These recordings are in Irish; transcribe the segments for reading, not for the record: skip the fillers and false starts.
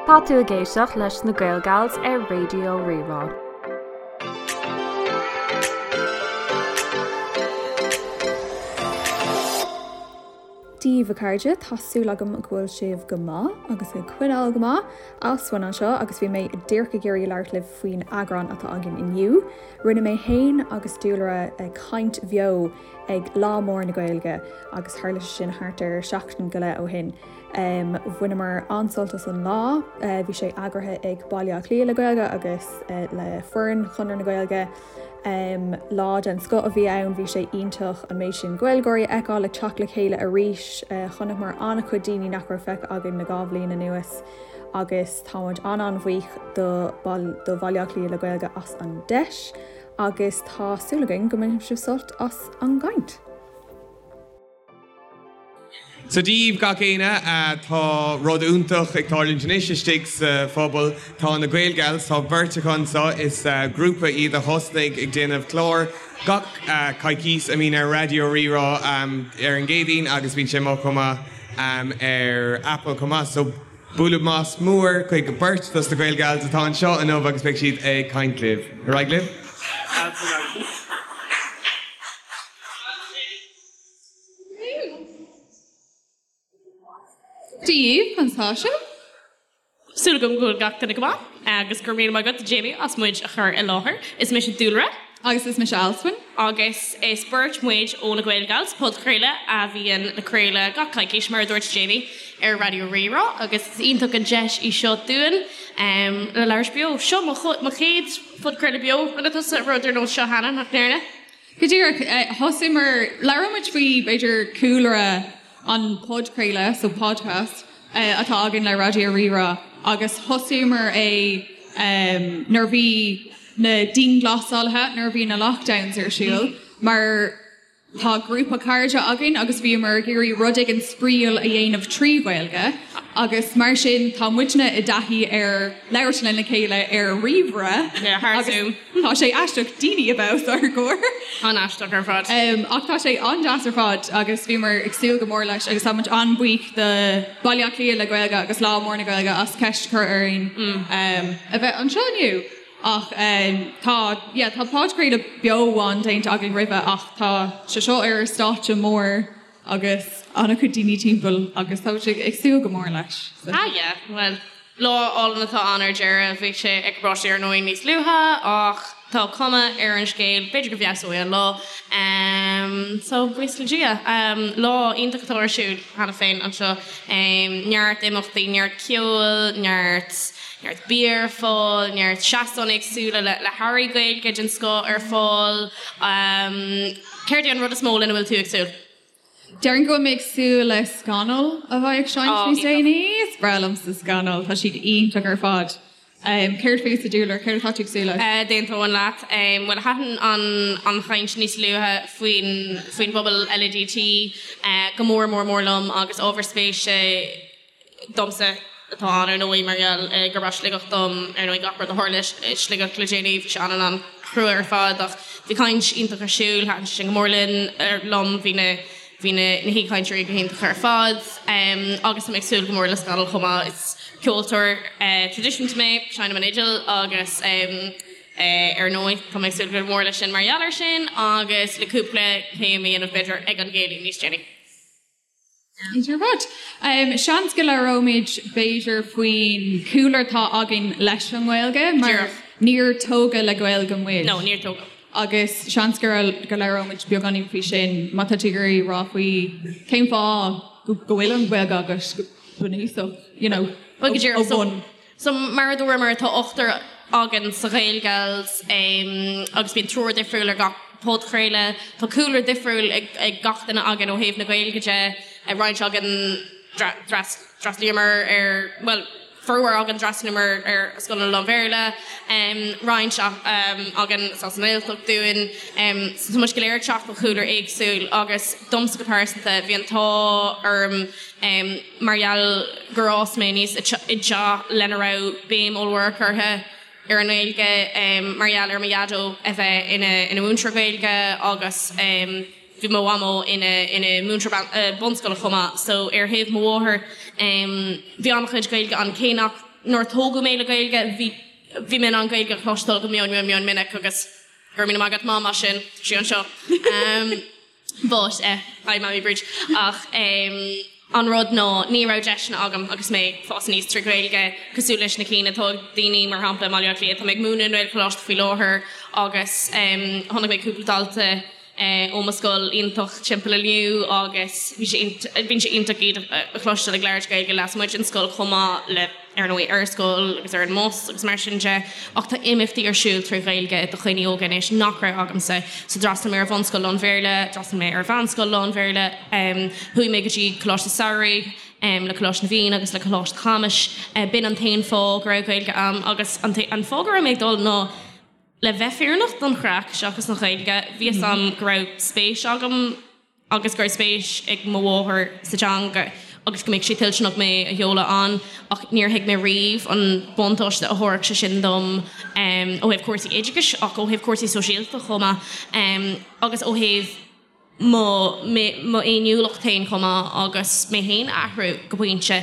Tá tú ag éisteacht leis na Gaelgals ar Raidió Rí-Rá. Dia daoibh a chairde, tá súil agam go bhfuil sibh go maith agus ag coinneáil go maith. Alswyn anseo agus bhí mé díreach ag iarraidh labhairt libh faoin eagrán atá againn inniu. Rinne mé féin agus Dúlra caint bheo ag Lá Mór na Gaeilge agus tharla sé sin thart ar seachtain go leith ó shin. Bhaineamar an-sult as an lá. Bhí sé eagraithe ag Baile Átha Cliath le Gaeilge agus le foireann Chonradh na Gaeilge. Lá den scoth a bhí ann, bhí sé iontach an méid sin Gaeilgeoirí a fheiceáil ag teacht le chéile arís. Chonaiceamar an-chuid daoine nach raibh feicthe againn le 2 bhliain anuas agus tá muid an-an-bhuíoch do Bhaile Átha Cliath le Gaeilge as an deis agus tá súil againn go mbainfidh sibh sult as an gcaint. So Dia daoibh gach éinne, tá rud iontach ag tarlúint anois istigh sa phobal. Tá na Gaelgals, tá beirt acu anseo, is grúpa iad a thosnaigh ag déanamh clár gach coicís a mbíonn ar Raidió Rí-Rá ar an gCéadaoin agus bíonn sé amuigh chomh maith ar Apple chomh maith. So bualadh bos mór chuig beirt dos na Gaelgals atá anseo inniu agus beidh siad ag caint libh. Ar aghaidh libh. Dia daoibh, conas tá sibh? Súil agam go bhfuil gach duine go maith agus go raibh míle maith agat Jamie as muid a chur i láthair. Is mise Dúlra. Agus is mise Alswyn. Agus is beirt muid ó na Gaelgals, podchraoladh a bhíonn le craoladh gach coicís, mar a dúirt Jamie, ar Raidió Rí-Rá agus is iontach an deis í seo dúinn le labhairt beo. Seo mo chéad phodchraoladh beo. Rinne tusa rud ar nós seo cheana, nach ndearna? Go díreach, thosaíomar, labhróidh muid faoi, b'fhéidir, cúlra an podchraoladh, so podcast, atá againn le Raidió Rí-Rá agus thosaíomar é nuair a bhí na dianghlasálaithe, nuair a bhí na lockdowns ar siúl, mar tá grúpa cairde againn agus bhíomar ag iarraidh rud éigin spraíúil a dhéanamh trí Ghaeilge agus mar sin tá muidne i dtaithí ar labhairt lena chéile ar ríomhaire agus Tá sé aisteach daoine a bheith os ár gcomhair. An-aisteach ar fad. Ach tá sé an-deas ar fad agus bhíomar ag súil go mór leis agus tá muid an-bhuíoch do Baile Átha Cliath le Gaeilge agus Lá Mór na Gaeilge as ceist a chur orainn a bheith anseo inniu. Ach tá, yeah, tá podchraoladh beo amháin déanta againn roimhe ach tá sé seo ar stáitse mór agus an-chuid daoine timpeall agus tá muid ag súil go mór leis. Ah yeah, bhuel, lá álainn atá ann ar deireadh. Bhí sé ag báisteach ar ndóigh níos luaithe ach tá cuma ar an scéal, b'fhéidir go bhfeabhsóidh an lá. So, buíochas le Dia. Lá iontach atá ar siúl cheana féin anseo. Neart imeachtaí, neart ceoil, neart neart bia ar fáil, neart seastáin éagsúla le le hearraí Gaeilge den scoth ar fáil. Céard é an rud is mó lena bhfuil tú ag súil? Déarfainn go bhfuil mé ag súil le Scannal a bheidh ag seinnt Ó, níos iontach. déanaí. Is breá liomsa Scannal, tá siad iontach ar fad. Céard fútsa, Dúlra, céard atá tú ag súil leis? D'aontóinn leat. Bhuel, thaitin an an chaint níos luaithe faoin faoin bpobal LADT go mór mór mór liom agus ábhar spéise domsa atá ann, ar ndóigh, mar gheall gurb as Sligeach dom, ar ndóigh, gach rud a tharla i Sligeach le déanaí, bhí sé an-an-chrua ar fad ach bhí caint iontach ar siúl, thaitin sé sin go mór linn, liom, bhí na, bhí na, na haoichainteoirí go hiontach ar fad agus tá mé ag súil go mór le Scannal chomh maith, is ceoltóir traidisiúnta mé, seinnim an fhidil agus ar ndóigh, tá mé ag súil go mór leis sin mar gheall air sin agus le cúpla céim a dhéanamh b'fhéidir ag an gcéilí níos déanaí. Ar fad. Seans go labhróimid b'fhéidir faoin chúlra atá againn leis an nGaeilge mar níor tógadh le Gaeilge muid. No, níor tógadh. Agus seans go go labhróimid beagáinín faoi sin má tá tú ag iarraidh rá faoi cén fáth go bhfuil an Ghaeilge agat go bunúsach, you know, Bhuel, go díreach. ó bhun. So, mar a dúramar, tá ochtar againn sa Ghaelgals agus bíonn triúr difriúil ar gach podchraoladh. Tá cúlra difriúil ag gach duine againn ó thaobh na Gaeilge de. Roinnt againn d'fhreastlaíomar ar, bhuel, formhór againn d'fhreastlaíomar ar scoileanna lán-Bhéarla, roinnt againn is as an nGaeltacht dúinn. So tá muid go léir ag teacht ó chúlra éagsúil agus domsa go pearsanta bhí an t-ádh orm, mar gheall gur fhás mé aníos i dteach lena raibh béim ollmhór curtha ar an nGaeilge mar gheall ar mo dhaideo a bheith ina ina mhúinteoir Gaeilge agus bhí mo mhamó ina ina múinteoir bunscoile chomh maith so ar thaobh mo mháthar bhí an-chuid Gaeilge ann cé nach. Nuair a tógadh mé le Gaeilge, bhí, bhí mé in ann Gaeilge a chloisteáil go mion, mion, mion minic agus go raibh míle maith agat Mam as sin, tá sí anseo. But, eh, hi Mammy Bríd. Ach em, an rud ná ní raibh deiseanna agam agus mé ag fás aníos trí Ghaeilge cosúil leis na cinn atá ag daoine mar shampla i mBaile Átha Cliath. Tá mé ag múineadh i nGaelcholáiste faoi láthair agus em, chonaic mé cúpla dalta eh, ó mo scoil iontach timpeall inniu agus bhí sé bíonn sé iontach iad a chloisteáil ag labhairt Gaeilge lasmuigh den scoil chomh maith le ar ndóigh ar scoil agus ar an mbus agus mar sin de, ach tá imeachtaí ar siúl trí Ghaeilge do dhaoine óga anois nach raibh agamsa. So d'fhreastail mé ar bhunscoil lán-Bhéarla, d'fhreastail mé ar mheánscoil lán-Bhéarla, chuaigh mé go dtí Coláiste Samhraidh le Coláiste na bhFiann agus le Coláiste Chamuis. B'in an t-aon fáth go raibh Gaeilge a'm agus an fáth go raibh mé ag dul ná le bheith fírinneach don chraic seachas an Ghaeilge. Bhí fhios a'm go raibh spéis agam agus go raibh spéis ag mo mháthair sa teanga agus go mbeadh sí toilteanach mé a sheoladh ann ach níor thuig mé riamh an buntáiste a thabharfadh sé sin dom ó thaobh cúrsaí oideachais ach ó thaobh cúrsaí sóisialta chomh maith agus ó thaobh mo m'fhéiniúlacht féin chomh maith agus mé féin a athrú go pointe.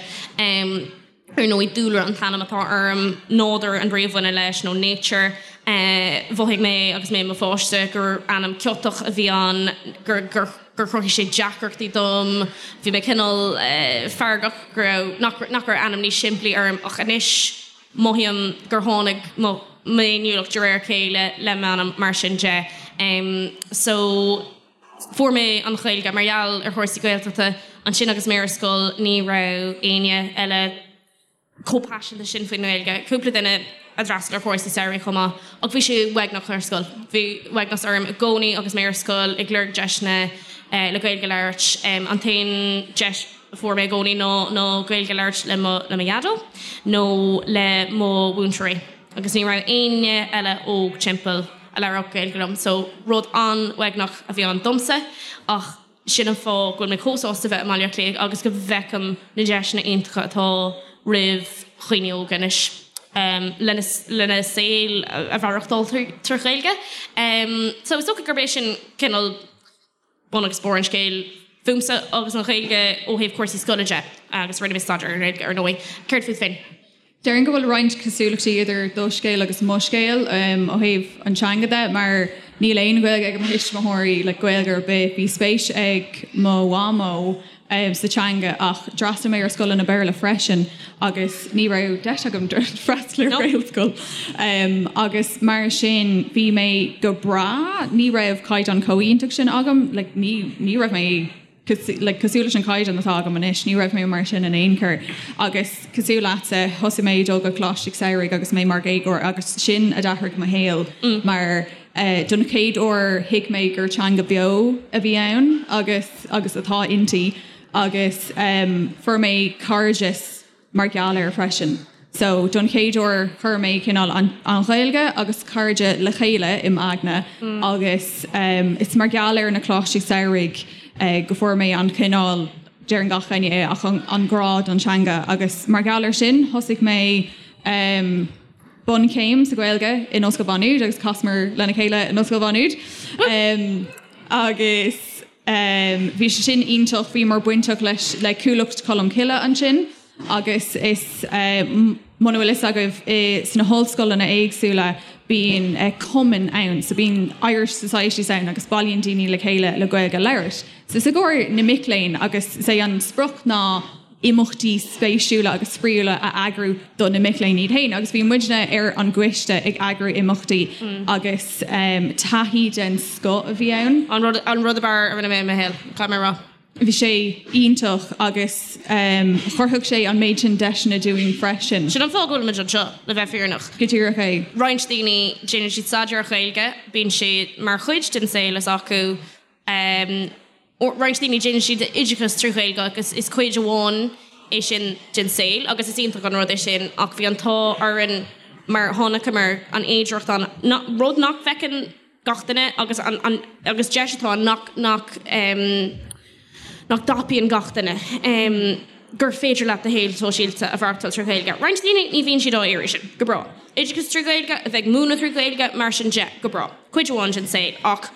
Ar ndóigh, Dúlra an t-ainm atá orm, nádúr an bhrí a bhaineann leis, nó nature. Mhothaigh mé agus mé i mo pháiste gur ainm ciotach a bhí ann, gur gur chruthaigh sé deacrachtaí dom. Bhí mé cineál feargach go raibh, nach nach raibh ainm níos simplí orm ach anois mothaím gur tháinig mo m'fhéiniúlacht de réir a chéile le m'ainm mar sin de. So. Fuair mé an Ghaeilge mar gheall ar chúrsaí Gaeltachta. Ansin agus mé ar scoil ní raibh éinne eile chomh paiseanta sin faoin nGaeilge. Cúpla duine a d'fhreastail ar chúrsaí samhraidh chomh maith. Ach bhí sé uaigneach ar scoil. Bhí uaigneas orm i gcónaí agus mé ar scoil ag lorg deiseanna le Gaeilge a labhairt. An t-aon deis a fuair mé i gcónaí ná ná Gaeilge a labhairt le mo le mo dhaideo nó le mo mhúinteoirí. Agus ní raibh éinne eile óg timpeall. a labhródh Gaeilge liom. So, rud an-uaigneach a bhí ann domsa ach sin an fáth go bhfuil mé chomh sásta bheith i mBaile Átha Cliath agus go bhfeicim na deiseanna iontacha atá roimh dhaoine óga anois lena lena saol a mhaireachtáil trí Ghaeilge. So, is dócha gurb é sin cineál bun agus barr an scéil fúmsa agus an Ghaeilge ó thaobh cúrsaí scoile de agus rinne mé staidéar ar an nGaeilge ar ndóigh. Céard fút féin? Déarfainn go bhfuil roinnt cosúlachtaí idir do scéal agus mo scéal ó thaobh an teanga de mar níl aon Ghaeilge ag mo thuismitheoirí, like Gaeilge ar bith. Bhí spéis ag mo mhamó sa teanga ach d'fhreastail mé ar scoileanna Béarla freisin agus ní raibh deis agam freastal ar Ghaelscoil agus mar sin bhí mé go breá, ní raibh caighdeán chomh iontach sin agam, like ní ní raibh mé like cosúil leis an caighdeán atá agam anois, ní raibh mé mar sin in aon chor agus cosúil leatsa thosaigh mé ag dul go Coláiste Samhraidh agus mé mar dhéagóir agus sin a d'athraigh mo shaol mar don chéad uair thuig mé gur teanga beo a bhí ann agus agus atá inti agus fuair mé cairdeas mar gheall air freisin. So don chéad uair chuir mé cineál an an Ghaeilge agus cairde le chéile i m'aigne agus is mar gheall ar na coláistí samhraidh go fuair mé an cineál, deireann gach éinne é, ach an an grá don teanga agus mar gheall air sin thosaigh mé bunchéim sa Ghaeilge in Ollscoil Mhá Nuad agus chasamar lena chéile in Ollscoil Mhá Nuad agus bhí sé sin iontach, bhíomar bainteach leis le Cuallacht Cholm Cille ansin agus is muna bhfuil fhios agaibh sna hollscoileanna éagsúla bíonn cumainn ann so bíonn Irish Societies ann agus bailíonn daoine le chéile le Gaeilge a labhairt. So is i gcomhair na mic léinn agus is é an sprioc ná imeachtaí spéisiúla agus spraíúla a eagrú do na mic léinn iad féin agus bhí muidne ar an gcoiste ag eagrú imeachtaí agus taithí den scoth a bhí ann. An rud an rud ab fhearr a rinne mé i mo shaol, caithfidh mé a rá. Bhí sé iontach agus chruthaigh sé an méid sin deiseanna dúinn freisin. Sin an fáth go bhfuil muid anseo, le bheith fírinneach. Go díreach é. Roinnt daoine, déanann siad staidéar ar Ghaeilge, bíonn sé mar chuid den saol s'acu. Roinnt daoine, déanann siad oideachas trí Ghaeilge agus is cuid amháin é sin den saol agus is iontach an rud é sin ach bhí an t-ádh orainn mar chonaiceamar an fhéidearthacht ann, rud nach bhfeiceann gach duine agus an agus deis atá ann nach nach nach dtapaíonn gach duine gur féidir leat do shaol sóisialta a mhaireachtáil trí Ghaeilge. Roinnt daoine ní bhíonn siad á iarraidh sin, go breá. Oideachas trí Ghaeilge, a bheith ag múineadh trí Ghaeilge, mar sin de, go breá. Cuid amháin den saol ach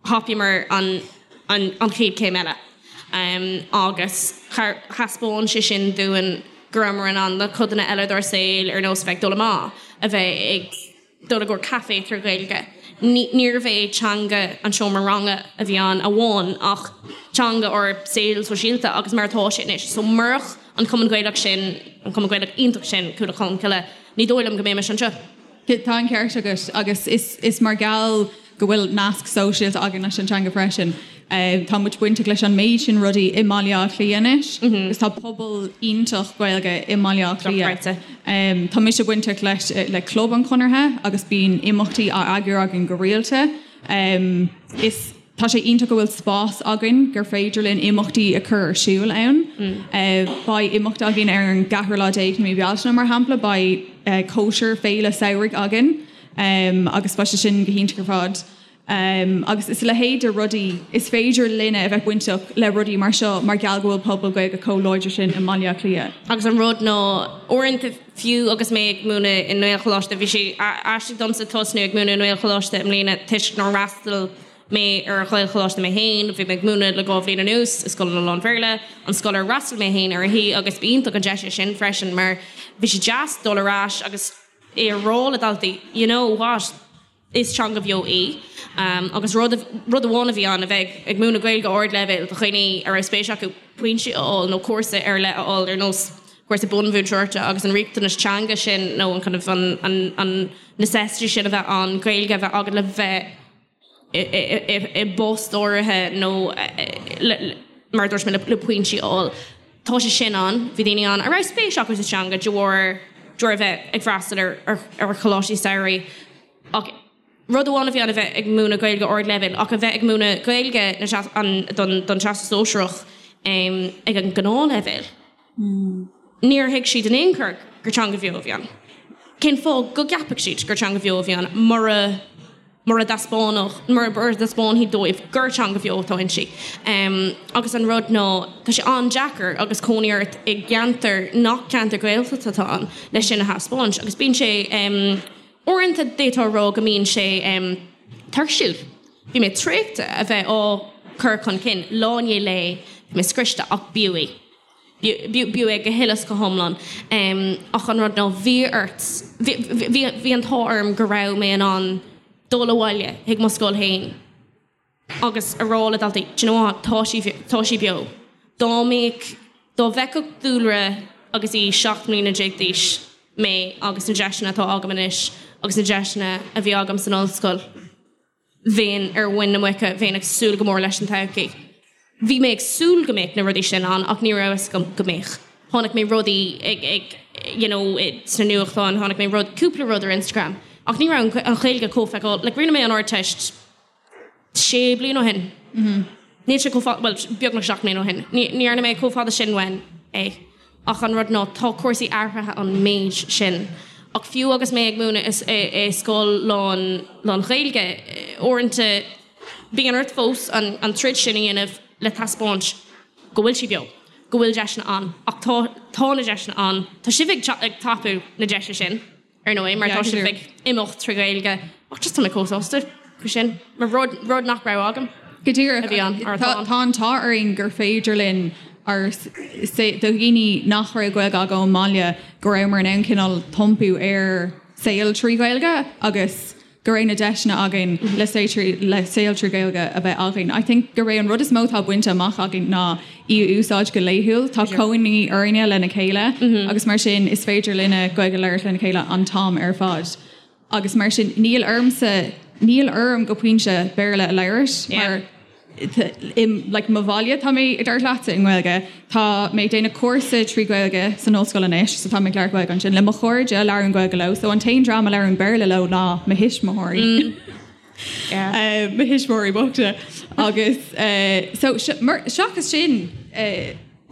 thapaíomar an an chéad chéim eile agus thaispeáin sé sin dúinn. go rabhamar in ann na codanna eile dár saol ar nós a bheith ag dul amach, a bheith ag dul i gcomhair caife trí Ghaeilge. Níorbh é teanga an seomra ranga a bhí ann amháin ach teanga ár saol sóisialta agus mar atá sé anois. So murach an Cumann Gaelach sin, an Cumann Gaelach iontach sin, Cuallacht Cholmcille, ní dóigh liom go mbeimis anseo. Tá an ceart agat agus is mar gheall go bhfuil nasc sóisialta againn leis an teanga freisin. Tá muid bainteach leis an méid sin rudaí i mBaile Átha Cliath anois agus tá pobal iontach Gaeilge i mBaile Átha Cliath. Tá mise bainteach leis le Club an Chonartha agus bíonn imeachtaí á eagrú againn go rialta. Is Tá sé iontach go bhfuil spás againn gur féidir linn imeachtaí a chur ar siúl ann. Beidh imeacht againn ar an gceathrú lá déag de mhí Bealtaine, mar shampla, beidh cóisir féile samhraidh againn agus beidh sé sin go hiontach ar fad. Agus is a leithéid de rudaí, is féidir linne a bheith bainteach le rudaí mar seo mar gheall go bhfuil pobal Gaeilge chomh láidir sin i mBaile Átha Cliath. Agus an rud ná, uaireanta, fiú agus mé ag múineadh i nGaelcholáiste, bhí sé aisteach domsa tosnú ag múineadh i nGaelcholáiste i mbliana toisc nár fhreastail mé ar Ghaelcholáiste mé féin, bhí mé ag múineadh le 2 bhliain anuas i scoileanna lán-Bhéarla, an scoil ar fhreastail mé féin uirthi agus b'iontach an deis é sin freisin mar bhí sé deas dul ar ais agus é a rá le daltaí, you know what? Is teanga bheo í. Agus rud rud amháin a bhí ann, a bheith ag múineadh Gaeilge ardleibhéil do dhaoine a raibh spéis acu pointí a fháil nó cúrsa ar leith a fháil ar nós cúrsa bunmhúinteoireachta agus an riachtanas teanga sin nó an kind of an an an necessity sin a bheith ann Gaeilge a bheith agat le bheith i bpost áirithe nó mar a dúirt mé le pointí a fháil. Tá sé sin ann. Bhí daoine ann a raibh spéis acu sa teanga de bharr de bharr a bheith ag freastal ar ar choláistí samhraidh. Ach rud amháin a bhí ann a bheith ag múineadh Gaeilge ardleibhéil ach a bheith ag múineadh Gaeilge na don don Teastas Sóisearach ag an ngnáthleibhéal. Níor thuig siad in aon chor gur teanga bheo a bhí ann. Cén fáth go gceapfadh siad gur teanga bheo a bhí ann mura mura dtaispeánfadh, mura dtaispeánfaí dóibh gur teanga bheo atá inti. Agus an rud ná, tá sé an-deacair agus cónaí ort i gceantar nach ceantar Gaeltachta atá ann leis sin a thaispeáint. Agus bíonn sé, uaireanta d'fhéadfá a rá go mbíonn sé tuirsiúil. Bhí mé traochta a bheith á cur chun cinn lá i ndiaidh lae, bhí mé scriosta ach b'fhiú é. B'fhiú é go huile is go hiomlán. Ach an rud ná, bhí ort, bhí an t-ádh orm go raibh mé in ann dul abhaile chuig mo scoil féin agus a rá le daltaí, do you know what, tá sí, tá sí beo. Dá mbeadh, dá bhfeicfeadh Dúlra agus í 17 mbliana d'aois mé agus na deiseanna atá agam anois agus na deiseanna a bhí agam san ollscoil, bheinn ar mhuin na muice, bheinn ag súil go mór leis an todhchaí. Bhí mé ag súil go mbeadh na rudaí sin ann ach ní raibh a fhios agam go mbeadh. Chonaic mé rudaí ag, ag, you know, sna nuachtáin, chonaic mé rud, cúpla rud ar Instagram ach ní raibh an Ghaeilge chomh feiceáil, like rinne mé an Ardteist sé bliana ó shin. Níl sé chomh fada, bhuel, beagnach 7 mbliana ó shin. Ní dhearna mé chomh fada sin uaim é. Ach an rud ná, tá cúrsaí athraithe an méid sin. Ach fiú agus mé ag múineadh i scoil lán, lán-Ghaeilge, uaireanta bíonn ort fós an troid sin a dhéanamh le taispeáint go bhfuil sí beo, go bhfuil deiseanna ann. Ach tá, tá na deiseanna ann. Tá sibh ag tapú na deise sin. ar ndóigh, mar tá sibh ag imeacht trí Ghaeilge ach just tá mé chomh sásta faoi sin, mar rud, rud nach raibh agam. Go díreach, a bhí ann, mar atá ann. Tá an t-ádh orainn gur féidir linn ár, do dhaoine nach raibh Gaeilge acu ón mbaile, go rabhamar in ann cineál iompú ar saol trí Ghaeilge agus go raibh na deiseanna againn le le saol trí Ghaeilge a bheith againn. I think gurb é an rud is mó atá bainte amach againn ná í a úsáid go laethúil. Tá cónaí orainne lena chéile agus mar sin is féidir linne Gaeilge a labhairt lena chéile an t-am ar fad. Agus mar sin níl ormsa, níl orm go pointe Béarla a labhairt mar i like mo bhaile tá mé ag labhairt leatsa i nGaeilge. Tá mé ag déanamh cúrsa trí Ghaeilge san ollscoil anois so tá mé ag labhairt Gaeilge ansin. Le mo chairde labhraím Gaeilge leo so an t-aon dream a labhraím Béarla leo ná mo thuismitheoirí. Mo thuismitheoirí bochta agus so seachas sin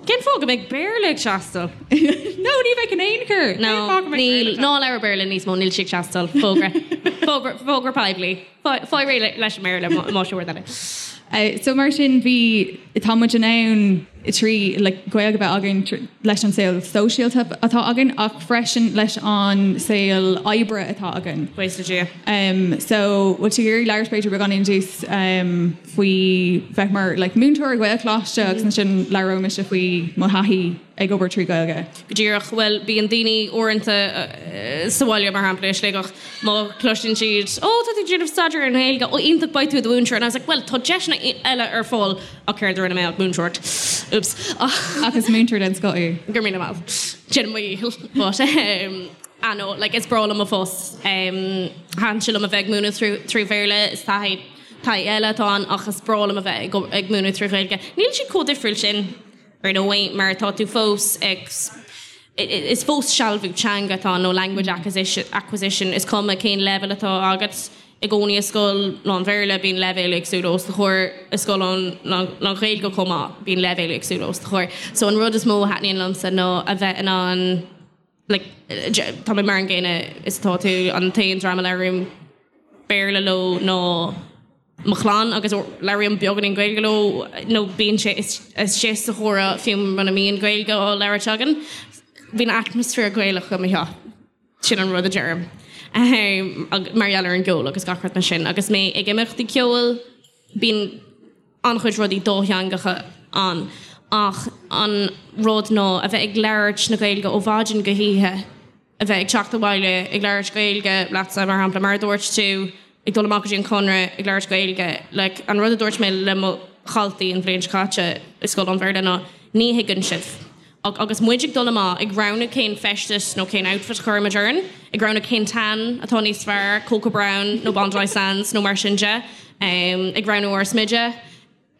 Cén fáth go mbeadh Béarla ag teastáil? No, ní bheadh in aon chor. No, níl, ná labhair Béarla níos mó, níl sé ag teastáil. Fógra. Fógra, fógra poiblí. Faigh réidh leis an mBéarla más rud eile. So mar sin bhí, tá muid in ann. trí like Gaeilge a bheith againn leis an saol sóisialta atá againn ach freisin leis an saol oibre atá againn. Buíochas le Dia. Um, so bhfuil tú ag iarraidh labhairt b'fhéidir beagáinín dús um, faoi bheith mar like, múinteoir i Gaelcholáiste agus ansin labhróidh mise faoi mo thaithí ag obair trí Ghaeilge. Go díreach, bhuel, bíonn daoine uaireanta sa bhaile, mar shampla, i Sligeach, má chloiseann siad, 'Ó, tá tú ag déanamh staidéar ar an nGaeilge, ó, iontach, beidh tú i do mhúinteoir. And I was like, 'Bhuel, tá deiseanna eile ar fáil, ach céard a rinne mé ach múinteoireacht. Oops. Ach is múinteoir den scoth í. Go raibh míle maith. Déanaim mo dhícheall. But, um, ah no, like, is breá liom mo phost. Um, thaitin sé liom a bheith ag múineadh trí Bhéarla, is taithí taithí eile atá ann, ach is breá liom a bheith ag ag múineadh trí Ghaeilge. Níl siad chomh difriúil sin. Ar ndóigh, mar tá tú fós ag, is fós sealbhú teanga atá ann, nó language acquisition, is cuma cén leibhéal atá agat. I gcónaí i scoil lán-Bhéarla bíonn leibhéil éagsúla os do chomhair, i scoil lán-Ghaeilge chomh maith bíonn leibhéil éagsúla os do chomhair. So an rud is mó a thaitníonn liomsa ná a bheith in ann, like, tá mé mar an gcéanna is atá tú, an t-aon dream a labhraím Béarla leo ná mo chlann agus labhraím beagáinín Gaeilge leo nó bíonn sé istigh sa chomhrá fiú muna mbíonn Gaeilge á labhairt againn. Bíonn atmaisféar Gaelach i mo theach, sin an rud a deirim, mar gheall ar an gceol agus gach rud mar sin. Agus mé ag imeachtaí ceoil, bíonn an-chuid rudaí dátheangacha ann ach an rud ná a bheith ag labhairt na Gaeilge ó mhaidin go hoíche, a bheith ag teacht abhaile ag labhairt Gaeilge leatsa, mar shampla, mar a dúirt tú, ag dul amach go dtí an Conradh ag labhairt Gaeilge, like, an rud a dúirt mé le mo dhaltaí an bhliain seo caite i scoil lán-Bhéarla ná ní thuigeann sibh. Ach agus muid ag dul amach, ag roghnú cén feisteas nó cén outfit a chuirimid orainn, ag roghnú cén tan atá níos fearr, Cocoa Brown nó Bondi Sands nó mar sin de, ag roghnú ár smideadh,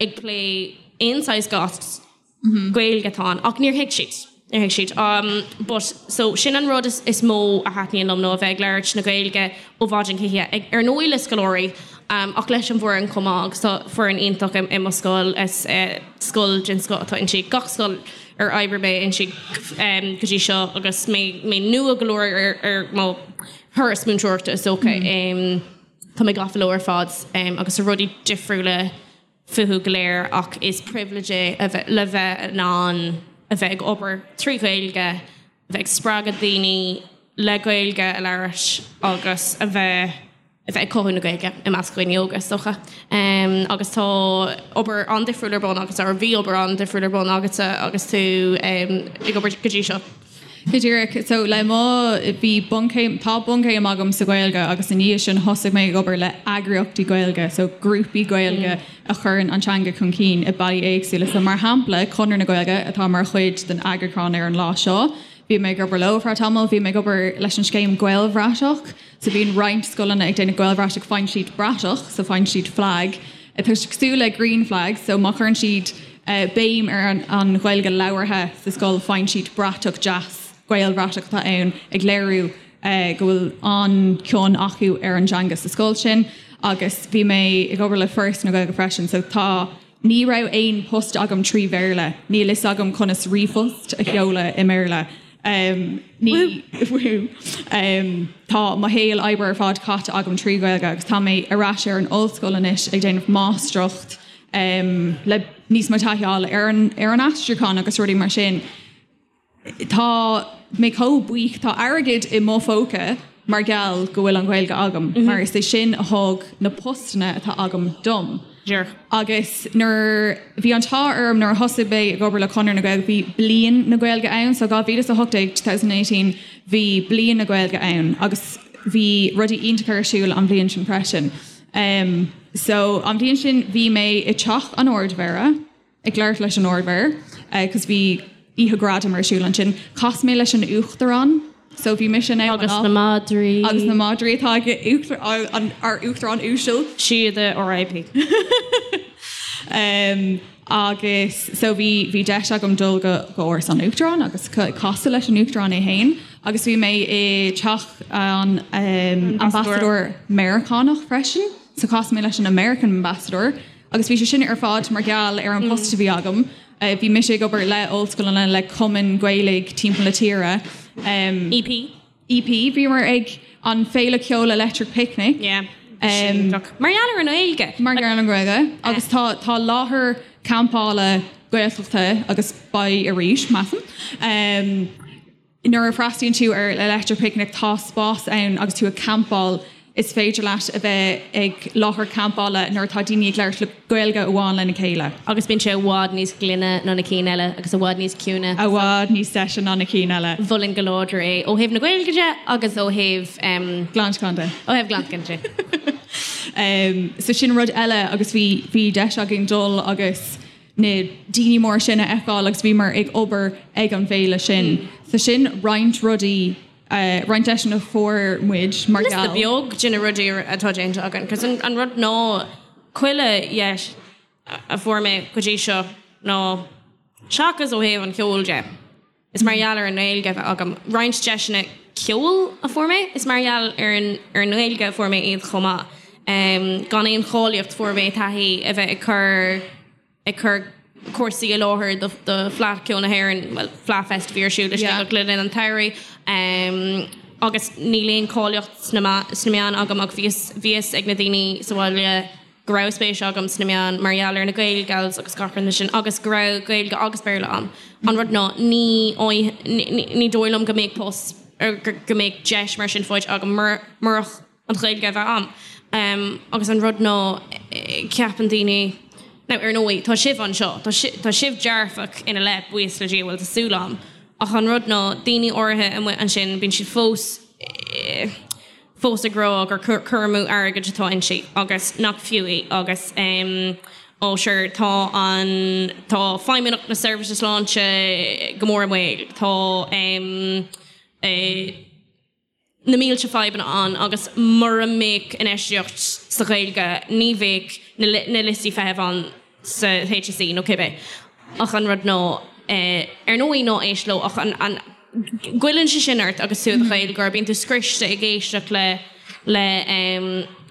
ag plé aon saghas goss, Gaeilge atá ann. Ach níor thuig siad. Níor thuig siad. But, so, sin an rud is mó a thaitníonn liom nó a bheith ag labhairt na Gaeilge ó mhaidin go hoíche. Ag, ar ndóigh le scoláirí, ach leis an bhfoireann chomh maith agus tá foireann iontach i mo scoil. Is scoil den scoth atá inti. Gach scoil ar oibrigh mé inti go dtí seo agus mé, mé nua go leor ar, ar mo thuras múinteoireachta is dócha. Tá mé gafa leo ar fad agus tá rudaí difriúla fúthu go léir ach is pribhléid é a bheith le bheith in ann a bheith ag obair trí Ghaeilge, a bheith ag spreagadh daoine le Gaeilge a labhairt agus a bheith a bheith ag cothú na Gaeilge i measc dhaoine óga is dócha. Agus tá obair an-difriúil ar bun agatsa, or bhí obair an-difriúil ar bun agatsa agus tú ag obair go dtí seo. Go díreach. So le mo, bhí bunchéim, tá bunchéim agam sa Ghaeilge agus i ndiaidh sin thosaigh mé ag obair le eagraíochtaí Gaeilge, so grúpaí Gaeilge a chuireann an teanga chun cinn i bealaí éagsúla. So mar shampla, Conradh na Gaeilge atá mar chuid den eagrúchán ar an lá seo, bhí mé ag obair leo ar feadh tamaill, bhí mé ag obair leis an scéim Gaelbhratach, so bíonn roinnt scoileanna ag déanamh Gaelbhratach, faigheann siad bratach, so faigheann siad flag, atá cosúil le green flag, so má chuireann siad béim ar an Ghaeilge labhartha sa scoil, faigheann siad bratach deas, Gaelbhratach atá ann, ag léiriú go bhfuil an-chion acu ar an dteanga sa scoil sin. Agus bhí mé ag obair le Foras na Gaeilge freisin, so tá, ní raibh aon post agam trí Bhéarla, níl fhios agam conas ríomhphost a sheoladh i mBéarla. Ní, tá mo shaol oibre ar fad caite agam trí Ghaeilge agus tá mé ar ais ar an ollscoil anois ag déanamh máistreacht le níos mó taithí a fháil ar an ar an aistriúchán agus rudaí mar sin. Tá mé chomh buíoch, tá airgead i mo phóca mar gheall go bhfuil an Ghaeilge agam, mar is é sin a thug na postanna atá agam dom. Díreach. Agus nuair, bhí an t-ádh orm nuair a thosaigh mé ag obair le Conradh na Gaeilge, bhí Bliain na Gaeilge ann, so 2018, 2018, bhí Bliain na Gaeilge ann agus bhí rudaí iontacha ar siúl an bhliain sin freisin. Um, so an bhliain sin bhí mé i teach an Ardmhéara, ag labhairt leis an Ardmhéara, cos bhí oíche gradam ar siúl ansin. Chas mé leis an Uachtarán, so bhí mise in ann Agus na madraí. Agus na madraí atá ag uachtar, an, ár Uachtarán uasal. Síoda RIP. Um, agus so bhí, bhí deis agam dul go, go Áras an Uachtaráin agus casadh leis an Uachtarán é féin agus bhí mé i teach an um, ambasadóir Meiriceánach freisin, so chas mé leis an American Ambassador Agus bhí sé sin ar fad mar gheall ar an post a bhí agam. Bhí mise ag obair le ollscoileanna, le cumainn Gaeilge timpeall na tíre. EP. EP. Bhíomar ag an féile ceoil Electric Picnic. Yeah. Mar gheall ar an nGaeilge. Mar gheall ar an nGaeilge. Agus tá tá láthair campála. Gaeltachta agus beidh arís, measaim. Nuair a freastalaíonn tú ar Electric Picnic tá spás ann agus tú ag campáil, is féidir leat a bheith ag láthair campála nuair atá daoine ag labhairt le Gaeilge amháin lena chéile. Agus bíonn sé i bhfad níos glaine ná na cinn eile agus i bhfad níos ciúine. I bhfad níos deise ná na cinn eile. Mholfainn go láidir é ó thaobh na Gaeilge de agus ó thaobh. Glantacháin de. Ó thaobh glantacháin de. So sin rud eile agus bhí bhí deis againn dul agus na daoine móra sin a fheiceáil agus bhíomar ag obair ag an bhféile sin. So sin roinnt rudaí, roinnt deiseanna a fuair muid mar Liosta gheall. beag de na rudaí atá déanta againn, 'cause an rud ná chuile dheis a fuair mé go dtí seo ná seachas ó thaobh an cheoil de, is mar gheall ar an nGaeilge a bheith agam. Roinnt deiseanna ceoil a fuair mé, is mar gheall ar an ar an nGaeilge a fuair mé iad chomh maith. Gan aon cháilíocht fuair mé taithí a bheith ag cur ag cur cúrsaí i láthair do do Fleadh Ceoil na hÉireann, bhuel Fleadh Fest a bhí ar siúl i Sligeach le linn an tsamhraidh. Agus níl aon cháilíocht sna sna meáin agam ach bhí bhí fhios ag na daoine sa bhaile go raibh spéis agam sna meáin mar gheall ar na Gaelgals agus gach rud mar sin agus go raibh Gaeilge agus Béarla agam. An rud ná ní ní dóigh liom go mbeadh post go mbeadh deis mar sin faighte agam murach an Ghaeilge a bheith agam. Agus an rud ná ceapann daoine, now ar ndóigh tá sibh anseo, tá tá sibh dearfach ina leith, buíochas le Dia, bhuel tá súil agam, ach an rud ná daoine áirithe amuigh ansin bíonn siad fós fós ag rá gur cur amú airgid atá inti agus nach fiú í agus ó sure tá an tá Feidhmeannacht na Seirbhíse Sláinte go mór i mbaol, tá na mílte fadhbanna ann agus mura mbeadh infheistíocht sa Ghaeilge ní bheadh na liostaí feithimh ann sa HSE nó cibé. Ach an rud ná, ar ndóigh ná éist leo ach an, an, goilleann sé sin ort agus tú i do Ghaeilgeoir, bíonn tú scriosta ag éisteacht le, le,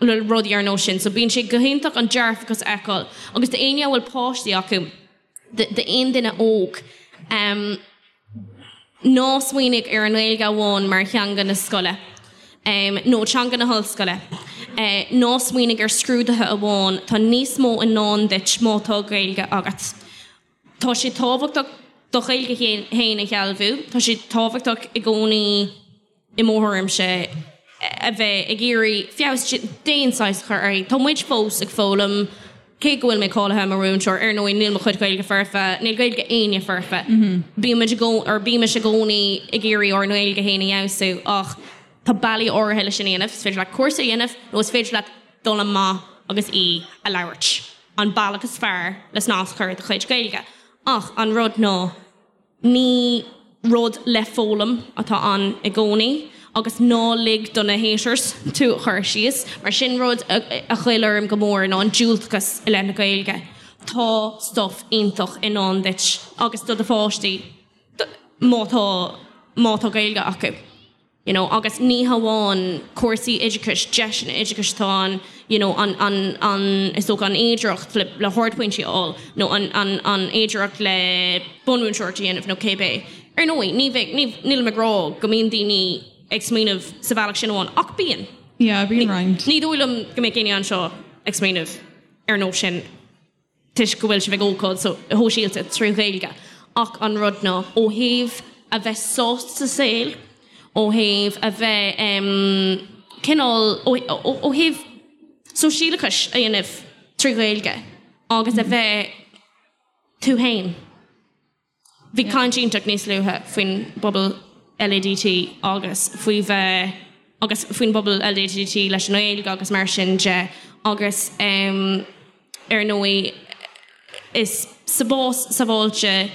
le rudaí ar nós sin. So bíonn sé go hiontach an dearfachas a fheiceáil agus d'éinne a bhfuil páistí acu, d'aon duine óg, ná smaoinigh ar an nGaeilge amháin mar theanga na scoile nó teanga na hollscoile. Ná smaoinigh ar scrúduithe amháin, tá níos mó i ndán duit má tá Gaeilge agat. Tá sé tábhachtach do Ghaeilge féin a shealbhú, tá sé tábhachtach i gcónaí i mo thuairimse a bheith ag iarraidh feabhas d'aon saghas a chur uirthi. Tá muid fós ag foghlaim, cé go bhfuil mé cáilithe mar mhúinteoir, ar ndóigh níl mo chuid Gaeilge foirfe, níl Gaeilge éinne foirfe. Bímid i gcónaí, or bímis i gcónaí ag iarraidh ár nGaeilge féin a fheabhsú ach tá bealaí áirithe leis sin a dhéanamh, is féidir leat cúrsa a dhéanamh nó is féidir leat dul amach agus í a labhairt. An bealach is fearr le snas a chur ar do chuid Gaeilge. Ach an rud ná, ní rud le foghlaim atá ann i gcónaí agus ná lig do na haters tú a chur síos, mar sin rud a ghoill orm go mór ná an diúltachas i leith na Gaeilge. Tá stuff iontach i ndán duit agus do do pháistí má tá má tá Gaeilge acu. you know agus ní hamháin cúrsaí oideachais, deiseanna oideachais atá ann you know an, an, an, is dócha an fhéidearthacht le, le hardphointí a fháil nó an, an, an fhéidearthacht le bunmhúinteoireacht a dhéanamh nó cébé. Ar ndóigh, ní bheidh, ní, nílim ag rá go mbíonn daoine ag smaoineamh sa bhealach sin amháin ach bíonn. Yeah, bíonn roinnt. Ní dóigh liom go mbeadh éinne anseo ag smaoineamh ar nós sin. toisc go bhfuil sibh ag ócáid shóisialta trí Ghaeilge ach an rud ná ó thaobh a bheith sásta sa saol, ó thaobh a bheith cineál, ó thaobh sóisialachais a dhéanamh trí Ghaeilge agus a bheith tú féin. Bhí caint iontach níos luaithe faoin bpobal LADT agus faoi bheith agus faoin bpobal LADT leis an nGaeilge agus mar sin de agus ar ndóigh is spás sábháilte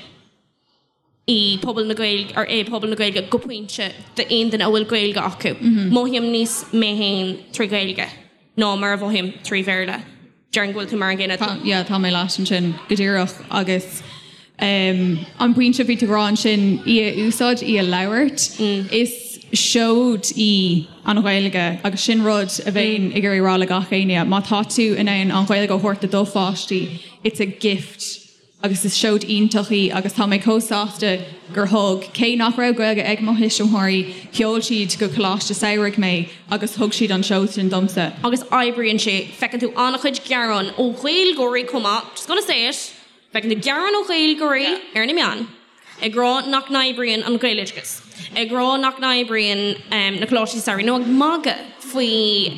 í pobal na Gaeilge or é pobal na Gaeilge go pointe d'aon duine a bhfuil Gaeilge acu. Mothaím níos mé féin trí Ghaeilge ná mar a mhothaím trí Bhéarla. Déarfainn go bhfuil tú mar an gcéanna. Tá, yeah, tá mé leat ansin go díreach agus um, an pointe a bhí tú ag rá ansin, í a úsáid, í a labhairt, is seoid í an Ghaeilge agus sin rud a bheinn ag iarraidh rá le gach éinne, má tá tú in ann an Ghaeilge a thabhairt do do pháistí, it's a gift. Agus is seoid iontach í agus tá mé chomh sásta gur thug, cé nach raibh Gaeilge ag mo thuismitheoirí, sheol siad go coláiste samhraidh mé agus thug siad an seod sin domsa. Agus oibríonn sé, feiceann tú an-chuid gearán ó Ghaeilgeoirí chomh maith, just gonna say it! Feiceann tú gearáin ó Ghaeilgeoirí ar na meáin ag rá nach n-oibríonn an Gaeloideachas, ag rá nach n-oibríonn na coláistí samhraidh nó ag magadh faoi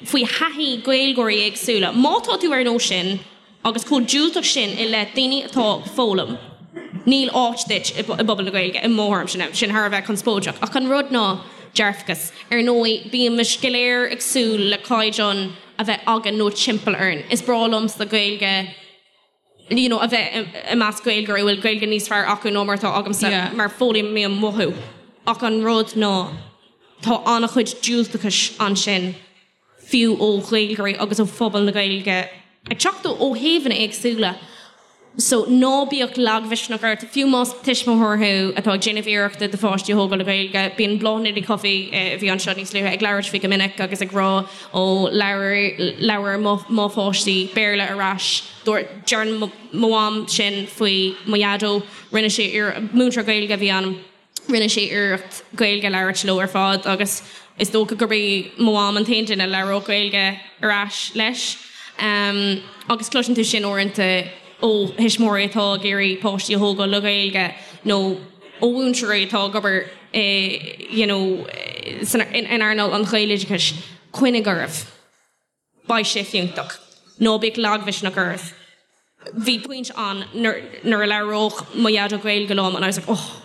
faoi thaithí Gaeilgeoirí éagsúla. Má tá tú ar nós sin agus chomh diúltach sin i leith daoine atá ag foghlaim, níl áit duit i bpobal na Gaeilge, i mo thuairimse. Now, sin thar a bheith conspóideach, ach an rud ná dearfachas. Ar ndóigh, bímid go léir ag súil le caighdeán a bheith againn nó timpeall orainn. Is breá liomsa Gaeilge you know a bheith i measc Gaeilgeoirí a bhfuil Gaeilge níos fearr acu ná mar atá agamsa Yeah. mar foghlaimím uathu. Ach an rud ná tá an-chuid diúltachais ansin fiú ó Ghaeilgeoirí agus ó phobal na Gaeilge ag teacht ó thaobhanna éagsúla. So ná bíodh lagmhisneach ort, fiú más tuismitheoir thú atá ag déanamh iarrachta do pháistí a thógáil le Gaeilge. Bíonn Bláthnaid Ní Chofaigh, a bhí anseo níos luaithe, ag labhairt faoi go minic agus ag rá ó labhair, labhair mo, mo pháistí Béarla ar ais. Dúirt, deireann mo mham sin faoi mo dhaideo, rinne sé iarracht, múinteoir Gaeilge a bhí ann. Rinne sé iarracht Gaeilge a labhairt leo ar fad agus is dócha gurb í mo mham an t-aon duine a labhródh Gaeilge ar ais leis. Agus cloiseann tú sin uaireanta ó thuismitheoirí atá ag iarraidh páistí a thógáil le Gaeilge nó ó mhúinteoirí atá ag obair i you know san in earnáil an Ghaeloideachais, coinnigh oraibh. Beidh sé fiúntach. Ná bíodh lagmhisneach oraibh. Bhí pointe ann nuair a labhródh mo dhaideo Gaeilge liom and I was like oh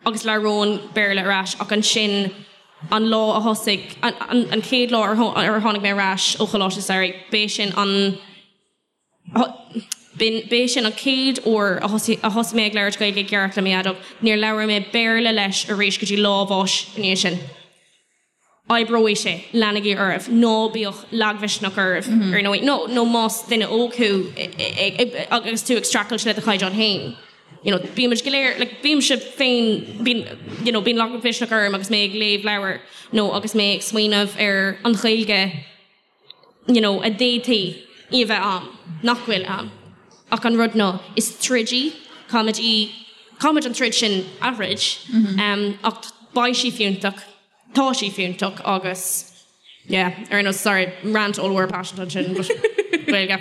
agus labhróinn Béarla ar ais ach ansin an lá a thosaigh, an chéad lá ar tháinig mé ar ais ó Choláiste Samhraidh, b'é sin an B'é sin an chéad uair a thosaigh mé ag labhairt Gaeilge i gceart le mo dhaideo. Níor labhair mé Béarla leis arís go dtí lá a bháis i ndiaidh sin. Oibreoidh sé, leanaigí oraibh, ná bíodh lagmhisneach oraibh, ar ndóigh, nó nó más duine óg thú agus tú ag streachailt le do chaighdeán féin. You know, bímid go léir, like, bímse féin, bíonn, you know, bíonn lagmhisneach orm agus mé ag léamh leabhair nó agus mé ag smaoineamh ar an Ghaeilge you know, a d'fhéadfaí í a bheith ann, nach bhfuil ann. Ach an rud ná, is troid í, caithfimid í, caithfimid an troid sin a throid, ach beidh sí fiúntach, tá sí fiúntach agus, yeah, ar aon nós, sorry, rant ollmhór paiseanta ansin, but Gaeilge.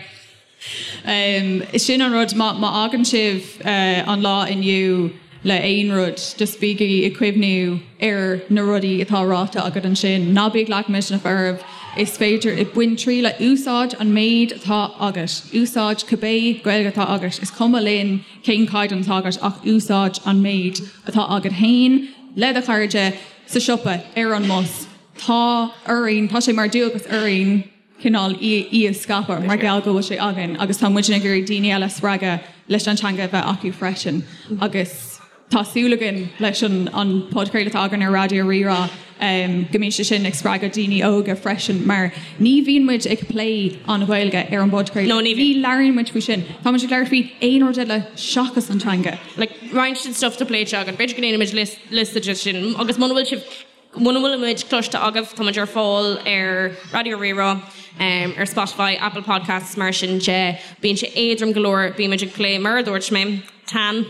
Sin an rud, má fhágann sibh an lá inniu le aon rud, just bígí ag cuimhniú ar na rudaí atá ráite agat ansin. Ná bíodh lagmhisneach oraibh, is féidir, bain triail, úsáid an méid atá agat, úsáid cibé Gaeilge atá agat, is cuma linn cén caighdeán atá agat ach úsáid an méid atá agat féin, le do chairde, sa siopa, ar an mbus. Tá orainn, tá sé mar dualgas orainn, cineál í a scaipeadh mar gheall go bhfuil sé againn agus tá muidne ag iarraidh daoine eile a spreagadh leis an teanga a bheith acu freisin agus tá súil againn leis an an podchraoladh atá againn ar Raidió Rí-Rá go mbíonn sé sin ag spreagadh daoine óga freisin mar ní bhíonn muid ag plé an Ghaeilge ar an bpodchraoladh. No, ní bhíonn. Ní labhraíonn muid faoi sin. Tá muid ag labhairt faoi aon rud eile seachas an teanga. Like, roinnt den stuff atá pléite againn, b'fhéidir go ndéanfaimid liosta de sin agus muna bhfuil sibh Muna bhfuil muid cloiste agaibh, tá muid ar fáil ar Raidió Rí-Rá, ar Spotify, Apple Podcasts, mar sin de. Bíonn sé éadrom go leor, bímid ag plé, mar a dúirt mé, tan,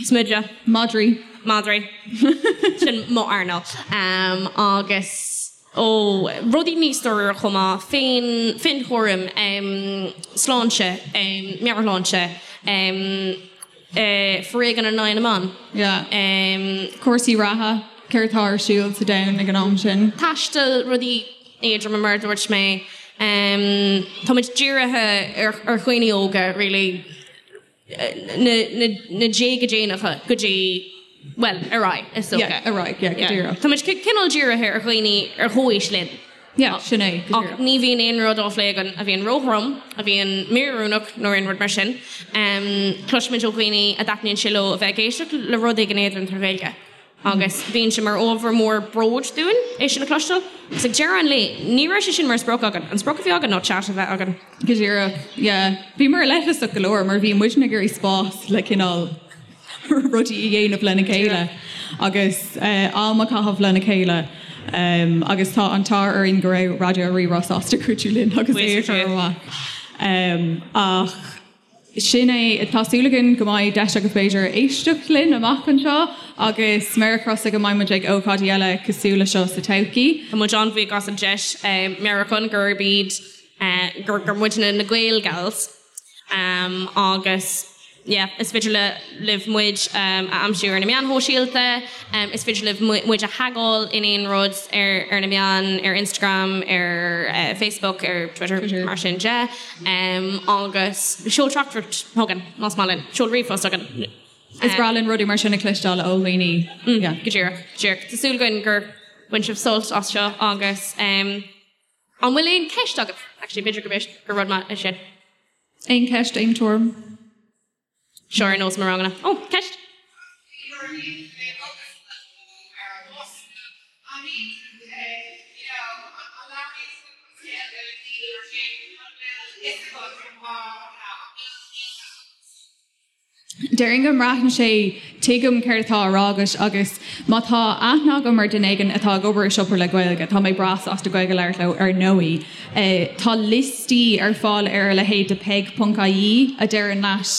smideadh. Madraí. Madraí. Sin mo earnáil. Agus, ó, rudaí níos dáiríre chomh maith, féin, féinchúram, sláinte, meabhairshláinte, Foréigean in aghaidh na mban. Yeah. Cúrsaí reatha, céard atá ar siúl sa domhan ag an am sin. Taisteal, rudaí éadroma mar a dúirt mé. Táimid dírithe ar dhaoine óga really, na déaga déanacha go dtí, bhuel, ar aghaidh is dócha. Yeah, ar aghaidh, yeah, go díreach. Táimid cineál dírithe ar dhaoine ar chomhaois linn. Yeah, sin é, go díreach. Ach ní bhíonn aon rud á phlé againn a bhíonn róthrom, a bhíonn míoiriúnach nó aon rud mar sin. Cloisimid ó dhaoine a dtaitníonn sé leo a bheith ag éisteacht le rud éigin éadrom trí Ghaeilge agus bíonn sé mar ábhar mór bróid dúinn é sin a chloisteáil. Agus ag deireadh an lae, ní raibh sé sin mar sprioc againn. An sprioc a bhí againn ná chat a bheith againn. Go díreach, yeah. Bhíomar leithleasach go leor mar bhí muidne ag iarraidh spás le cineál rudaí a dhéanamh lena chéile agus am a chaitheamh lena chéile agus tá an t-ádh orainn go raibh Raidió Rí-Rá sásta cuidiú linn agus é a chur amach. Ach sin é, tá súil againn go mbeidh deis agaibh b'fhéidir éisteacht linn amach anseo agus méar crosa go mbeidh muid ag ócáidí eile cosúil le seo sa todhchaí. Tá muid an-bhuíoch as an deis, meabhrúchán gurb iad, gur muidne na Gael Gals. Agus yeah, is féidir le libh muid a aimsiú ar na meáin shóisialta, is féidir libh muid a thagáil in aon rud ar ar na meáin, ar Instagram, ar Facebook, ar Twitter, mar sin de. Agus seol teachtaireacht chugainn, más maith linn, seol ríomhphost chugainn. Is breá linn rudaí mar sin a chloisteáil ó dhaoine. Yeah. Go díreach, go díreach. Tá súil againn gur bhain sibh sult as seo agus an bhfuil aon cheist agaibh? Actually, b'fhéidir go gur rud maith é sin. Aon cheist, aon tuairim? Seo ar nós mo ranganna. Ó, ceist! Déarfainn go mbraitheann sé, tuigim céard atá á rá agat agus má tá aithne agam ar duine éigin atá ag obair i siopa le Gaeilge, tá mé breá sásta Gaeilge a labhairt leo ar ndóigh. Tá liostaí ar fáil ar a leithéid de peig.ie a deireann leat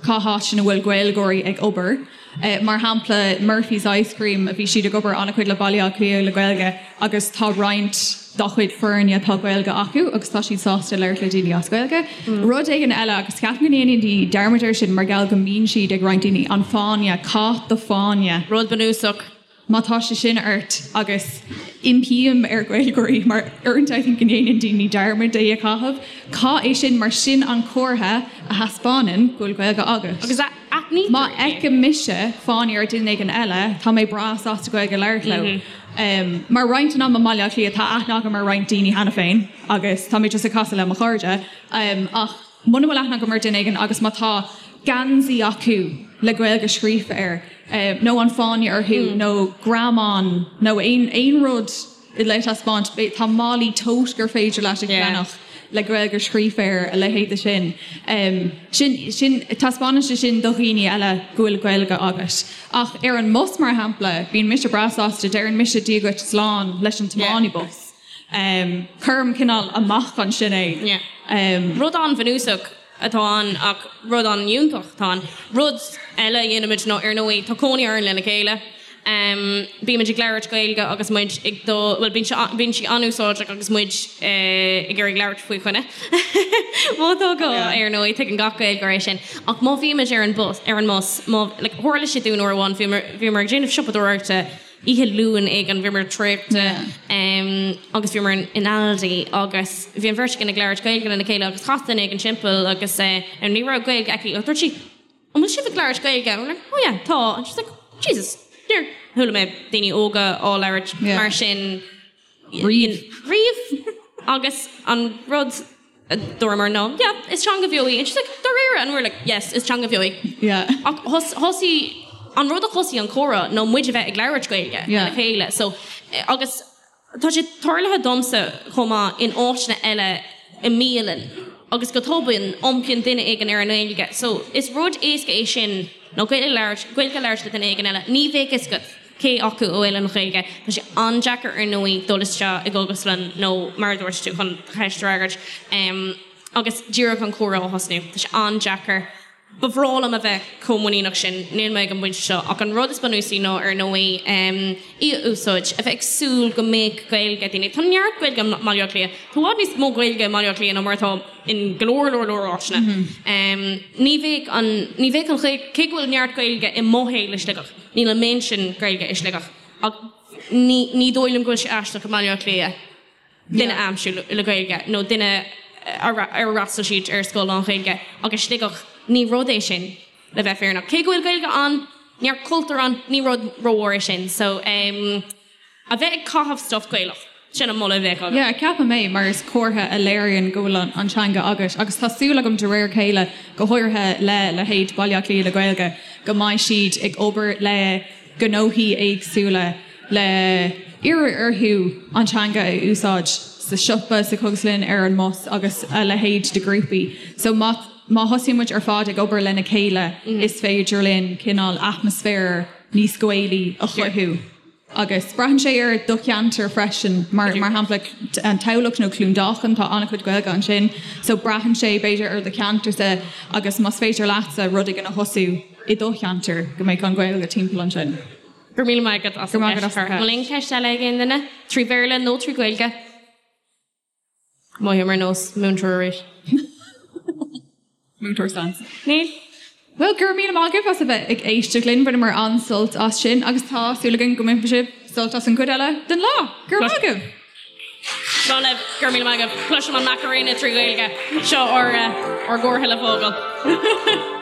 cá háit ina bhfuil Gaeilgeoirí ag obair. Mar shampla, Murphy's Ice Cream, bhí siad ag obair an-chuid le Baile Átha Cliath le Gaeilge agus tá roinnt dá chuid foirne tá Gaeilge acu agus tá siad sásta labhairt le daoine as Gaeilge. Rud éigin eile, agus ceapaim go ndéanann daoine dearmad air sin mar gheall go mbíonn siad ag roinnt daoine, an fáinne, caith do fáinne. Rud bunúsach. Má tá sé sin ort, agus impím ar Ghaeilgeoirí, mar uaireanta I think go ndéanann daoine dearmad é a chaitheamh, caith é sin mar sin an comhartha a thaispeánann go bhfuil Gaeilge agat. Agus aithnítear Má é. fheicim mise fáinne ar duine éigin eile, tá mé breá sásta Gaeilge a labhairt leo. Mar roinnt den am i mBaile Átha Cliath tá aithne agam ar roinnt daoine cheana féin agus tá mé just ag casadh le mo chairde ach muna bhfuil aithne agam ar duine éigin agus má tá geansaí acu le Gaeilge scríofa air nó an fáinne orthu nó greamán nó aon aon rud le taispeáint, tá málaí tote gur féidir leat a cheannach le Gaeilge scríofa air, a leithéid de sin. Sin, sin, taispeánann sé sin do dhaoine eile go bhfuil Gaeilge agat. Ach ar an mbus, mar shampla, bíonn mise breá sásta, deireann mise Dia dhuit slán leis an tiománaí bus. Cuirim cineál amach ansin é. Rud an-bhunúsach atá ann ach rud an-fhiúntach atá ann. Rud eile a dhéanaimid ná, ar ndóigh, tá cónaí orainn lena chéile. Bímid ag labhairt Gaeilge agus muid ag dul, bhuel, bíonn sé, bíonn sí an-úsáideach agus muid ag iarraidh labhairt faoi choinne. Má tá gá, ar ndóigh, tuigeann gach Gaeilgeoir é sin. Ach má bhímid ar an bus, ar an mbus, má, like, tharla sé dúinn uair amháin, bhíomar, bhíomar ag déanamh siopadóireachta oíche Luain éigin, bhíomar traochta agus bhíomar in, in Aldi agus bhí an bheirt againn ag labhairt Gaeilge lena chéile agus chas duine éigin timpeall agus ní raibh Gaeilge aici ach dúirt sí, An bhfuil sibh ag labhairt Gaeilge? And we're like, oh yeah, tá. And she's like, Jesus, níor chuala mé daoine óga á labhairt mar sin riamh. Riamh. Agus an rud a dúramar ná, yeah, is teanga bheo í. And she's like, dáiríre? And we're like, yes, is teanga bheo í. Yeah. Ach thosaigh, an rud a thosaigh an comhrá ná muid a bheith ag labhairt Gaeilge lena chéile. So, agus Tá sé tarlaithe domsa chomh maith in áiteanna eile i mbialann agus go tobann iompaíonn duine éigin ar an nGaeilge. So is rud éasca é sin nó Gaeilge a labhairt, Gaeilge a labhairt le duine éigin eile. Ní bheadh fhios agat cé acu a bhfuil an Ghaeilge. Tá sé an-deacair ar ndóigh dul isteach i gcógaslann nó mar a dúirt tú chun do cheist a fhreagairt agus díreach an comhrá a thosnú. Tá sé an-deacair. Ba bhreá liom a bheith chomh muiníneach sin, níl mé ag an bpointe seo, ach an rud is bunúsaí ná, ar ndóigh, í a úsáid, a bheith ag súil go mbeadh Gaeilge ag daoine. Tá neart Gaeilge i mBaile Átha Cliath. Tá i bhfad níos mó Gaeilge i mBaile Átha Cliath ná mar atá in go leor, leor, leor áiteanna. Ní bheadh an, ní bheadh an Ghaeilge, cé go bhfuil neart Gaeilge i mo shaol i Sligeach, níl an méid sin Gaeilge i Sligeach. Ach ní, ní dóigh liom go bhfuil sé aisteach i mBaile Átha Cliath. duine a aimsiú le Gaeilge nó duine ar fhreastail siad ar scoil lán-Ghaeilge ach i Sligeach ní rud é sin le bheith fírinneach. Cé go bhfuil Gaeilge ann, neart cultúr ann, ní rud rómhór é sin. So em a bheith ag caitheamh stuff Gaelach, sin an moladh a bheadh agam. Yeah, ceapaim é mar is comhartha a léiríonn go bhfuil an teanga agat agus tá súil agam de réir a chéile, go háirithe le leithéid Baile Átha Cliath le Gaeilge, go mbeidh siad ag obair le gnóthaí éagsúla le iarraidh orthu an teanga a úsáid sa siopa, sa chógaslann, ar an mbus agus a leithéid de ghrúpaí. So má má thosaíonn muid ar fad ag obair lena chéile is féidir linn cineál atmaisféar níos Gaelaí a chruthú. Agus braitheann sé ar do cheantar freisin, mar mar shampla an Tamhlacht nó Cluain Dolcáin, tá an-chuid Gaeilge ansin. So braitheann sé b'fhéidir ar do cheantarsa agus más féidir leatsa rud éigin a thosú i do cheantar go mbeadh an Ghaeilge timpeall ansin. Go raibh míle maith agat as an gceist. An bhfuil aon cheist eile ag aon duine? Trí Bhéarla nó trí Ghaeilge? Mothaím ar nós múinteoir arís. Múinteoir Sans. Níl. Bhuel, go raibh míle maith agaibh as a bheith ag éisteacht linn. Bhaineamar an-sult as sin agus tá súil againn go mbainfidh sibh sult as an gcuid eile den lá. Go raibh maith agaibh! Slán libh, go raibh míle maith agaibh. Cloisim an Macarena trí Ghaeilge. Seo ár gcomhartha le fágáil.